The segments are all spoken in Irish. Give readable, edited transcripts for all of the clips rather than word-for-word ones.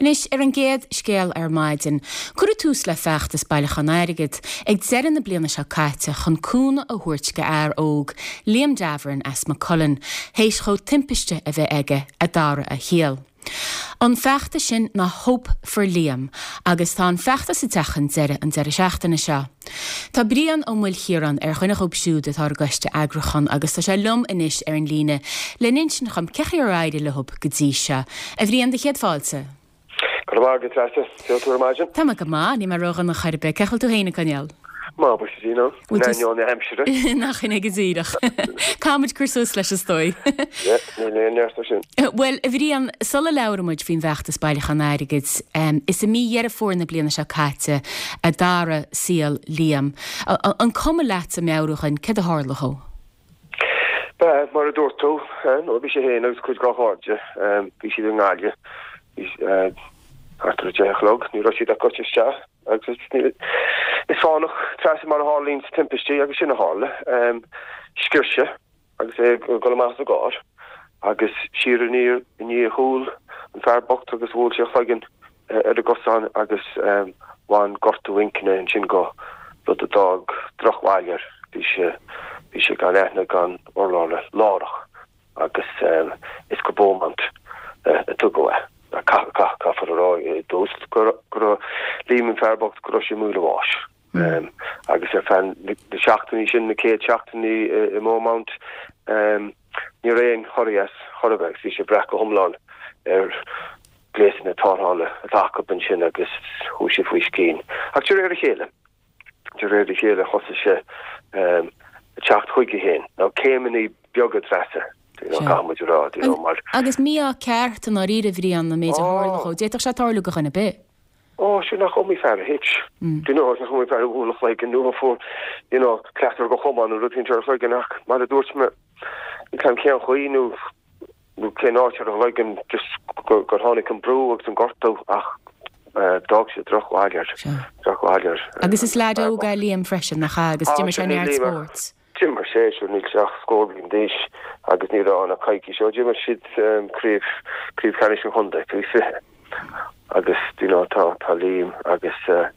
Anois, ar an gcéad scéal ar maidin, cuireadh tús le feachtas bailiúchán airgid ag deireadh na bliana seo caite chun cúnamh a thabhairt go fhear óg, Liam Davoren as Maigh Cuilinn, théis dhó timpiste a bheith aige a d'athraigh a shaol. An feachtas sin ná Hope for Liam agus tá an feachtas ag teacht chun deireadh an deireadh seachtaine seo. Tá Brian Ó Maoilchiaráin ar dhuine dhóibh siúd atá ar an gcoiste eagrúcháin agus tá sé liom anois ar an líne le n-insint dhom cé chaoi ar éirigh leo go dtí seo. A Bhriain, do chéad fáilte. Go raibh maith agat, a Treasa. Cén chaoi a bhfuil tú ar maidin? Tá mé go maith, níl mé ródhona chor ar bith. Cén chaoi a bhfuil tú féin ag coinneáil? Maith, buíochas le Dia, in ainneoin na haimsire. Nach in é go díreach. Caithfidh muid cur suas leis is dóigh. Yeah, níl aon neart air sin. Bhuel, a Bhriain, sula labhraíonn muid faoin bhfeachtas bailiúchán airgid, is i mí Dheireadh Fómhair na bliana seo caite a d'athraigh saol Liam. An cuma leatsa meabhrú dhuinn céard a tharla dhó? Ba, mar a dúirt tú, nó bhí sé féin agus cuid dá chairde, bhí siad i nGaillimh, bhí thart ar a 10 a chlog, ní raibh siad ach gaibhte isteach agus is fánach Treasa mar a tharlaíonn timpistí agus sin a tharla. Sciorr sé agus é ag dul amach as an gcarr agus siar aniar i ndiaidh a chúl an fear bocht agus bhuail sé a chloigeann ar an gcosán agus bhain gortú inchinne ansin dhó, rud a d'fhág drochbhail air. Bhí sé, bhí sé gan aithne gan urlabhra láithreach agus is go Beaumont a tugadh é. Caithfear a rá i dtús go raibh Liam an fear bocht go raibh sé i mbaol a bháis. Agus ar feadh na seachtainí sin, na chéad seachtainí i mBeaumont, ní raibh aon chorraí as chor ar bith agus bhí sé ag brath go hiomlán ar ghléasanna tarrthála atá acu ansin agus chuaigh sé faoi scian. Ach de réir a chéile, de réir a chéile thosaigh sé ag teacht chuige féin. Now céimeanna beaga Treasa, you know, caithfidh muid a rá, you know, mar. Agus mí-ádh ceart i ndáiríre, a Bhriain, an méid a tharla dhó. D'fhéadfadh sé tarlú do dhuine ar bith. Ó, sin nach iomaí fear a thit. Do you know, nach iomaí fear a bhuail a chloigeann nó a fuair, you know, cleasair de chamán nó rud éicint ar a chloigeann ach mar a dúirt mé, níl 'fhios a'm cén chaoi nó nó cén áit ar a chloigeann just gur tháinig an brú agus an gortú ach d'fhág sé drochbhail air, drochbhail air. Agus is leaid óg é Liam freisin, nach ea, agus d'imir sé neart spóirt. D'imir sé, sure níl sé ach scór bliain d'aois agus ní raibh ann ach coicís ó d'imir siad craobh, craobh cheannais an chontae faoi 20 agus you know tá, tá Liam agus a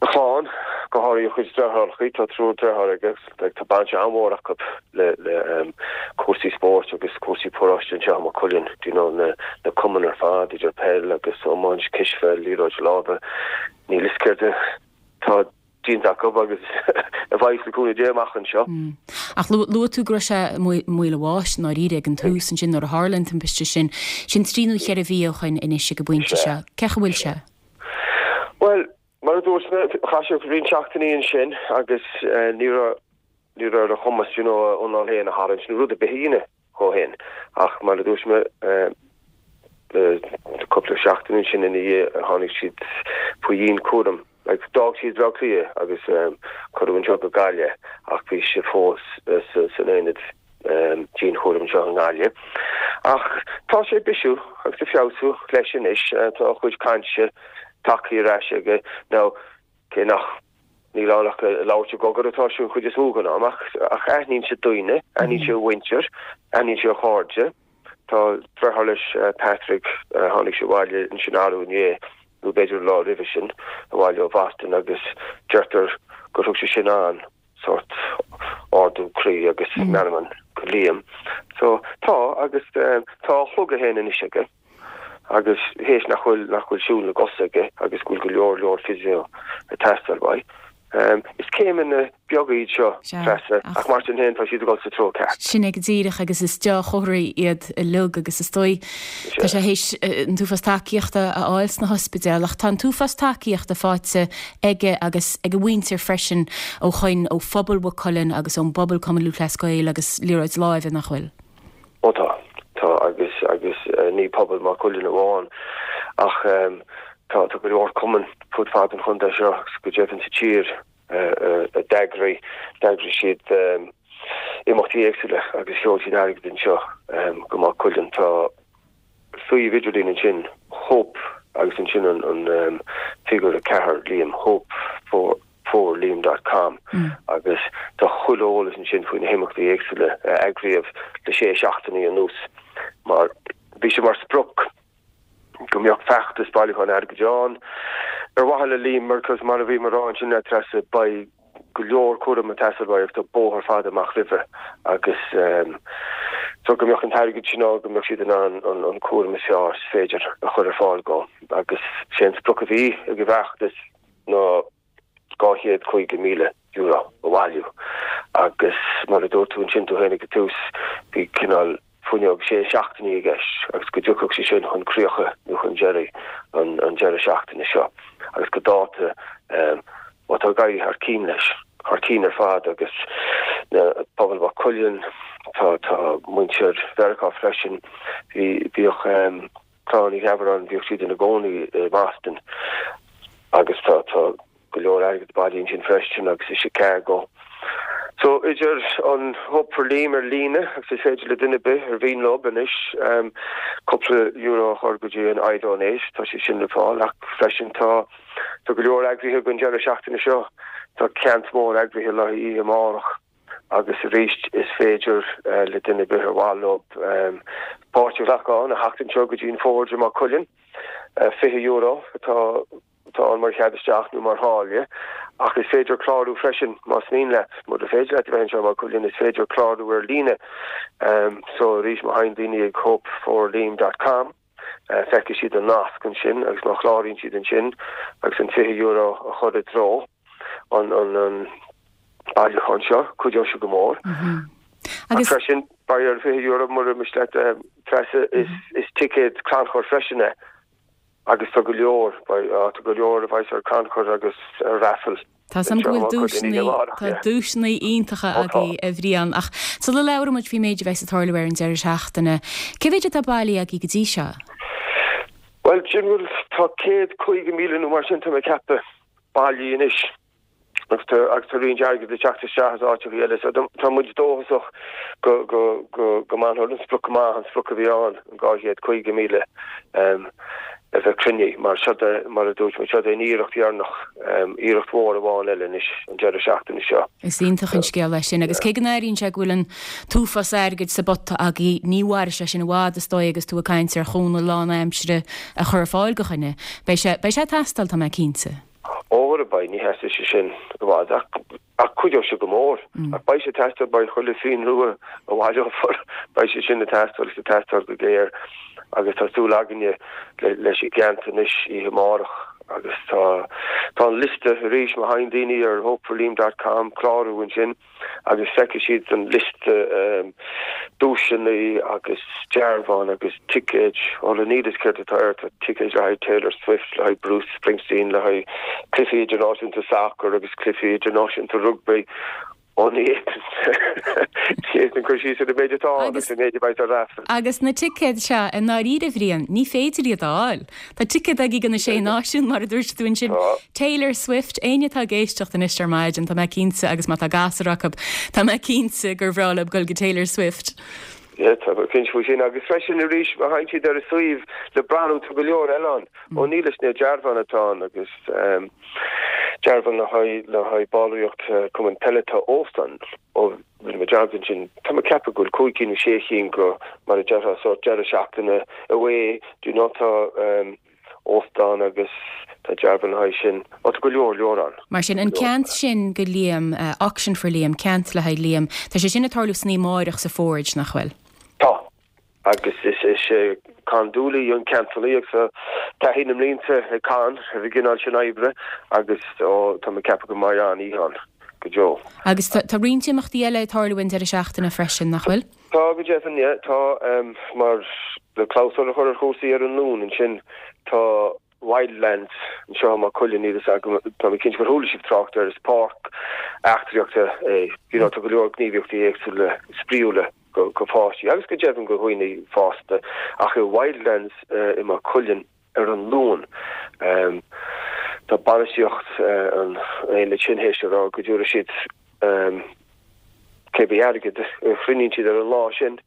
chlann, go háirithe a chuid deartháireachaí, tá triúr deartháir aige agus tá baint an-mhór acu le, le cúrsaí spóirt agus cúrsaí paróiste anseo i Maigh Cuilinn, you know na, na cumainn ar fad idir peil agus iomáint, cispheil, liathróid láimhe, níl 'fhios céard atá déanta acu agus a bheidh le cúnamh Dé amach anseo. Ach luaigh tú go raibh sé i mbaol a bháis i ndáiríre ag an tús ansin nuair a tharla an timpiste sin. Sin trí nó cheithre mhí ó shoin anois ag an bpointe seo. Cén chaoi a bhfuil sé? Bhuel, mar a dúirt mé, chaith sé roinnt seachtainí ansin agus ní raibh ní raibh ar a chumas you know a anáil féin a tharraingt nó rud ar bith a dhéanamh dhó féin. Ach mar a dúirt mé, cúpla seachtain ansin ina dhiaidh tháinig siad faoi dhianchúram. Like, d'fhág siad Baile Átha Cliath agus cuireadh anseo go Gaillimh ach bhí sé fós san aonad dianchúraim anseo i nGaillimh. Ach tá sé ag bisiú agus ag feabhsú leis anois. Tá a chuid cainte tagtha ar ais aige. Now, cé nach Níl ann ach ag labhairt i gcogar atá sé an chuid is mó den am, ach ach aithníonn sé daoine, aithníonn sé a mhuintir, aithníonn sé a chairde. Tá deartháir leis, Patrick, tháinig sé abhaile ansin arú inné, nó b'fhéidir an lá roimhe sin, abhaile ó Bhoston agus deirtear gur thug sé sin an sórt ardú croí agus meanman go Liam. So tá, agus tá a shliogadh féin anois aige. agus théis nach bhfuil nach bhfuil siúl na gcos aige agus go bhfuil go leor leor physio ag teastáil uaidh. Is céimeanna beaga iad seo, Treasa, ach mar sin féin tá siad ag dul sa treo ceart. Sin é go díreach agus is deá-chomharthaí iad uilig agus is dóigh tá sé théis an t-uafás tacaíochta a fháil sna hospidéil ach tá an t-uafás tacaíochta faighte aige agus ag a mhuintir freisin ó shoin ó phobal Mhaigh Cuilinn agus ón bpobal Cumann Lúthchleas Gael agus liathróid láimhe nach bhfuil? Ó tá. Tá agus agus ní pobal Maigh Cuilinn amháin ach tá tá go leor cumann fud fad an chontae seo agus go deimhin sa tír a d'eagraigh d'eagraigh siad imeachtaí éagsúla agus sheol siad airgead anseo go Maigh Cuilinn. Tá suíomh idirlín ansin Hope agus ansin an an figiúr 4 Liam Hope for for Liam dot com agus tá chuile eolas ansin faoi na himeachtaí éagsúla a eagraíodh le sé seachtainí anuas mar bhí sé mar sprioc. Go mbeadh feachtas bailiúcháin airgid ann ar mhaithe le Liam mar cos mar a bhí mé a rá ansin a Treasa beidh go leor cúraim ag teastáil uaidh agus tá bóthar fada amach roimhe agus so go mbeadh an t-airgead sin ann go mbeadh siad in ann an cúram is fearr is féidir a chur ar fáil dhó agus sé an sprioc a bhí ag an bhfeachtas ná €250,000 a bhailiú agus mar a dúirt tú ansin tú féin ag an tús, bhí cineál fuinneog sé seachtainí i gceist agus go dtiocfadh sé sin chun críocha nó chun deiridh an deireadh seachtaine seo agus go dáta bhuel tá ag éirí thar cinn leis, thar cinn ar fad agus na pobal Mhaigh Cuilinn, tá tá muintir Mheiriceá freisin, bhí bhíodh Clann Uí Gheabaráin, bhíodh siad ina gcónaí i mBoston agus tá tá go leor airgid bailithe ansin freisin agus i Chicago. So idir an Hope for Liam ar líne agus is féidir le duine ar bith ar mhian leo anois cúpla euro a chur go dtí an iDonate, tá sé sin le fáil ach freisin tá tá go leor eagraithe don deireadh seachtaine seo. Tá ceant mór eagraithe le haghaidh oíche amárach. Agus arís, is féidir le duine ar bith ar mhaith leo páirt a ghlacadh ann, a theacht anseo go dtí an Forge i Maigh Cuilinn. €20 atá atá ann mar chead isteach nó mar tháille, ach is féidir clárú freisin más mian leat. Mura féidir leat a bheith anseo i Maigh Cuilinn, is féidir clárú ar líne. So arís, má théann daoine ag hopeforliam dot com, feicfidh siad an nasc ansin agus má chláraíonn siad ansin agus an €20 a chur i dtreo an an bailiúchán seo, cuideoidh sé go mór. Agus freisin, beidh ar €20 mura miste leat Treasa, is ticéad crannchuir freisin é agus tá go leor, tá go leor a bheas ar crannchur agus ar raffle. Tá 's a'm go bhfuil duaiseanna, tá duaiseanna iontacha agaibh a Bhriain, ach sula labhraíonn muid faoin méid a bheas ag tarlú ar an deireadh seachtaine, cé mhéid atá bailithe agaibh go dtí seo? Bhuel, sin bhfuil, tá 150,000 nó mar sin, tá mé ag ceapadh, bailithe anois agus tá, agus tá roinnt airgid ag teacht isteach as áiteacha eile, so tá muid dóchasach go, go, go, go mbainfear an sprioc amach, an sprioc a bhí ann, an 250,000. A bheith cruinnithe, mar seo é, mar a dúirt mé, seo é an iarracht dheireanach, iarracht mhór amháin eile anois an deireadh seachtaine seo. Is iontach an scéal é sin agus cé go n-airíonn sé go bhfuil an t-uafás airgid sa bpota agaibh, ní mhairfidh sé sin i bhfad is dóigh agus tú ag caint ar chúnamh lánaimsire a chur ar fáil do dhuine. Beidh sé, beidh sé ag teastáil, tá mé cinnte. Ó, beidh, ní sheasfaidh sé sin i bhfad ach, ach cuideoidh sé go mór. Ach beidh sé ag teastáil, beidh chuile phingin rua a bhaileofar, beidh sé sin ag teastáil agus ag teastáil go géar agus tá súil againne leis an gceant anois oíche amárach agus tá tá an liosta arís má théann daoine ar hopeforliam dot com clárú ansin. agus feicfidh siad an liosta duaiseanna agus dearbháin agus ticéid, ó níl a fhios céard atá air, tá ticéid le haghaidh Taylor Swift, le haghaidh Bruce Springsteen, le haghaidh cluichí idirnáisiúnta sacair agus cluichí idirnáisiúnta rugbaí. Ó ní fhéadfainn cur síos ar an méid atá ann agus an méid a bheidh ar raffle. Agus na ticéid seo, i ndáiríre, a Bhriain, ní féidir iad a fháil. Tá ticéad agaibh do na Sé Náisiún, mar a dúirt tú ansin. Taylor Swift, éinne atá ag éisteacht anois ar maidin, tá mé cinnte, agus má tá gasúr acu, tá mé cinnte gur bhreá leo dul go Taylor Swift. Yeah, tá mé cinnte faoi sin. Agus freisin arís, má théann siad ar an suíomh le breathnú, tá go leor eile ann. Ó níl is na dearbháin atá ann agus dearbhán le haghaidh le haghaidh ballraíocht cumann peile tá óstán ó Rinne mé dearmad ansin. Tá mé ag ceapadh go bhfuil cúig cinn nó sé chinn go, mar a déarfá, sórt deireadh seachtaine away, do you know, tá óstán agus tá dearbhán le haghaidh sin. Ó, tá go leor, leor ann. Mar sin, an ceant sin go Liam, Auction for Liam, ceant le haghaidh Liam, tá sé sin ag tarlú san oíche amárach sa Forge, nach bhfuil? Tá. Agus is é Con Dooley an ceantalaí agus tá taithí na mblianta ag Con ar an gcineál sin oibre agus tá mé ag ceapadh go mbeidh an-oíche ann go deo. Agus tá roinnt imeachtaí eile ag tarlú an deireadh seachtaine freisin, nach bhfuil? Tá go deimhin, yeah. Tá, mar le clabhsúr a chur ar chúrsaí ar an Luan ansin, tá Wildlands anseo i Maigh Cuilinn, níl fhios agam, tá mé cinnte gur chuala sibh trácht air, is páirc eachtraíochta é, you know, tá go leor gníomhaíochtaí éagsúla spraíúla go go pháistí agus go deimhin go dhaoine fásta ach i Wildlands i Maigh Cuilinn ar an Luan tá bainistíocht an aonaid sin théis a rá go dtabharfaidh siad cébí airgead a chruinníonn siad ar an lá sin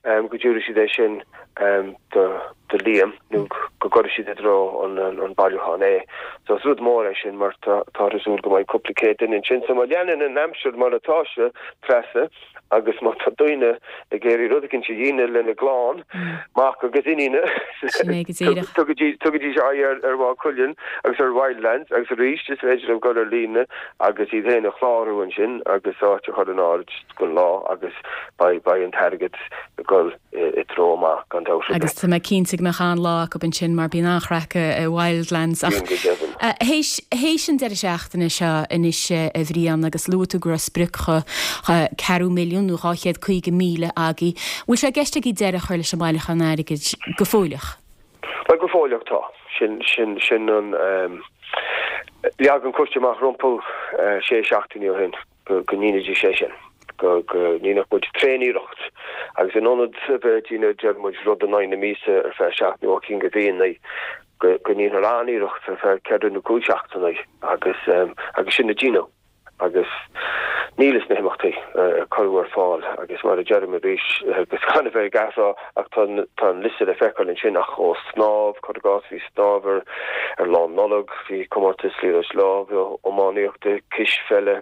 go dtabharfaidh siad é sin. Do Liam nó go gcuirfidh siad i dtreo an bailiúcháin é. So is rud mór é sin mar táthar ag súil go mbeidh cúpla céad duine ansin. So má leanann an aimsir mar atá sé, Treasa, agus má tá daoine ag iarraidh rud eicínt a dhéanamh lena gclann, mac agus iníne, tugaidís aghaidh ar Mhaigh Cuilinn agus ar Wildlands agus arís is féidir leo dul ar líne agus iad féin a chlárú ansin agus áit a chur in áirithe don lá agus beidh an t-airgead ag dul i dtreo maith, gan dabht ar bith. Agus tá mé cinnte go mbeadh an-lá acu ansin mar bíonn an-chraic i Wildlands. Ach théis, théis an deireadh seachtaine seo anois a Bhriain agus luaigh tú go raibh sprioc cheathrú milliún nó 250,000 agaibh, bhfuil sé i gceist agaibh deireadh a chur leis an mbailiúchán airgid go fóilleach? Bhuel go fóilleach tá. Sin, sin, sin an, leag an coiste amach rompu sé seachtainí ó shin. go ndéanfaidís é sin, go ndéanfadh muid tréaniarracht agus in ionad a bheith ag déanamh, deir muid, rud in aghaidh na míosa ar feadh seacht nó ocht gcinn de mhíonna, go ndéanfar an-iarracht ar feadh ceithre nó cúig seachtaine agus agus sin a déanadh agus níl is na himeachtaí a cuireadh ar fáil agus mar a deirim arís agus gan a bheith ag athrá ach tá tá an liosta le feiceáil ansin ach ó snámh, cuir i gcás, bhí snámh ar ar Lá Nollag, bhí comórtas liathróid láimhe, iománaíochta, cispheile.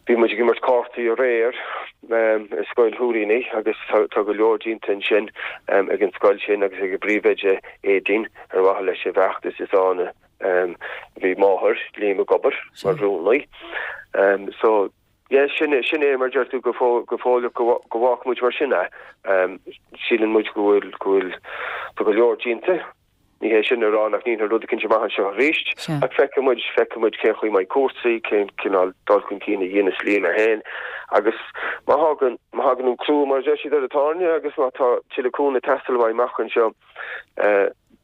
Bhí muid ag imirt cártaí aréir i Scoil Shúilíní agus tá go leor déanta ansin ag an scoil sin agus ag a bpríomhoide Aedín ar mhaithe leis an bhfeachtas is ann a bhí máthair Liam ag obair mar rúnaí. So yeah sin sin é mar deir tú go go fóilleach go go bhfágfaidh muid mar sin é. Síleann muid go bhfuil go bhfuil tá go leor déanta. Ní hé sin a rá nach ndéanfar rud eicínt amach anseo arís, ach feicfidh muid, feicfidh muid cén chaoi a mbeidh cúrsaí, cén cineál dul chun cinn a dhéanas Liam é féin agus má thagann, má thagann an crú mar a deir siad ar an tairne agus má tá tuilleadh cúnamh ag teastáil uaidh amach anseo,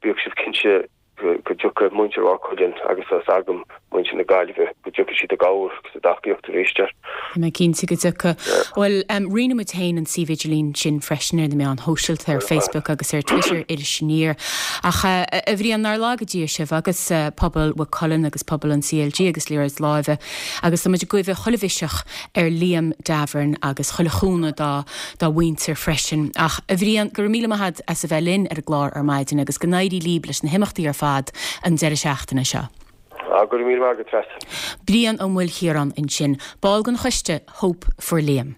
bíodh sibh cinnte go dtiocfaidh muintir Mhaigh Cuilinn agus tá 's agam muintir na Gaillimhe, go dtiocfaidh siad i gcabhair agus i dtacaíocht arís air. Tá mé cinnte go dtiocfaidh. Bhuel, roinnfidh muid féin an suíomh idirlín sin freisin ar na meáin shóisialta, ar Facebook agus ar Twitter, Iris Aniar. Ach, a Bhriain, nár laga Dia sibh agus pobal Mhaigh Cuilinn agus pobal an CLG agus liathróid láimhe agus tá muid ag guí chuile mhiseach ar Liam Davern agus chuile chúnamh dá dá mhuintir freisin. Ach, a Bhriain, go raibh míle maith agat as a bheith linn ar an gclár ar maidin agus go n-éirí líb leis na himeachtaí ar fad an deireadh seachtaine seo. Go raibh míle maith agat, Treasa. Brian Ó Maoilchiaráin ansin, ball den choiste Hope for Liam.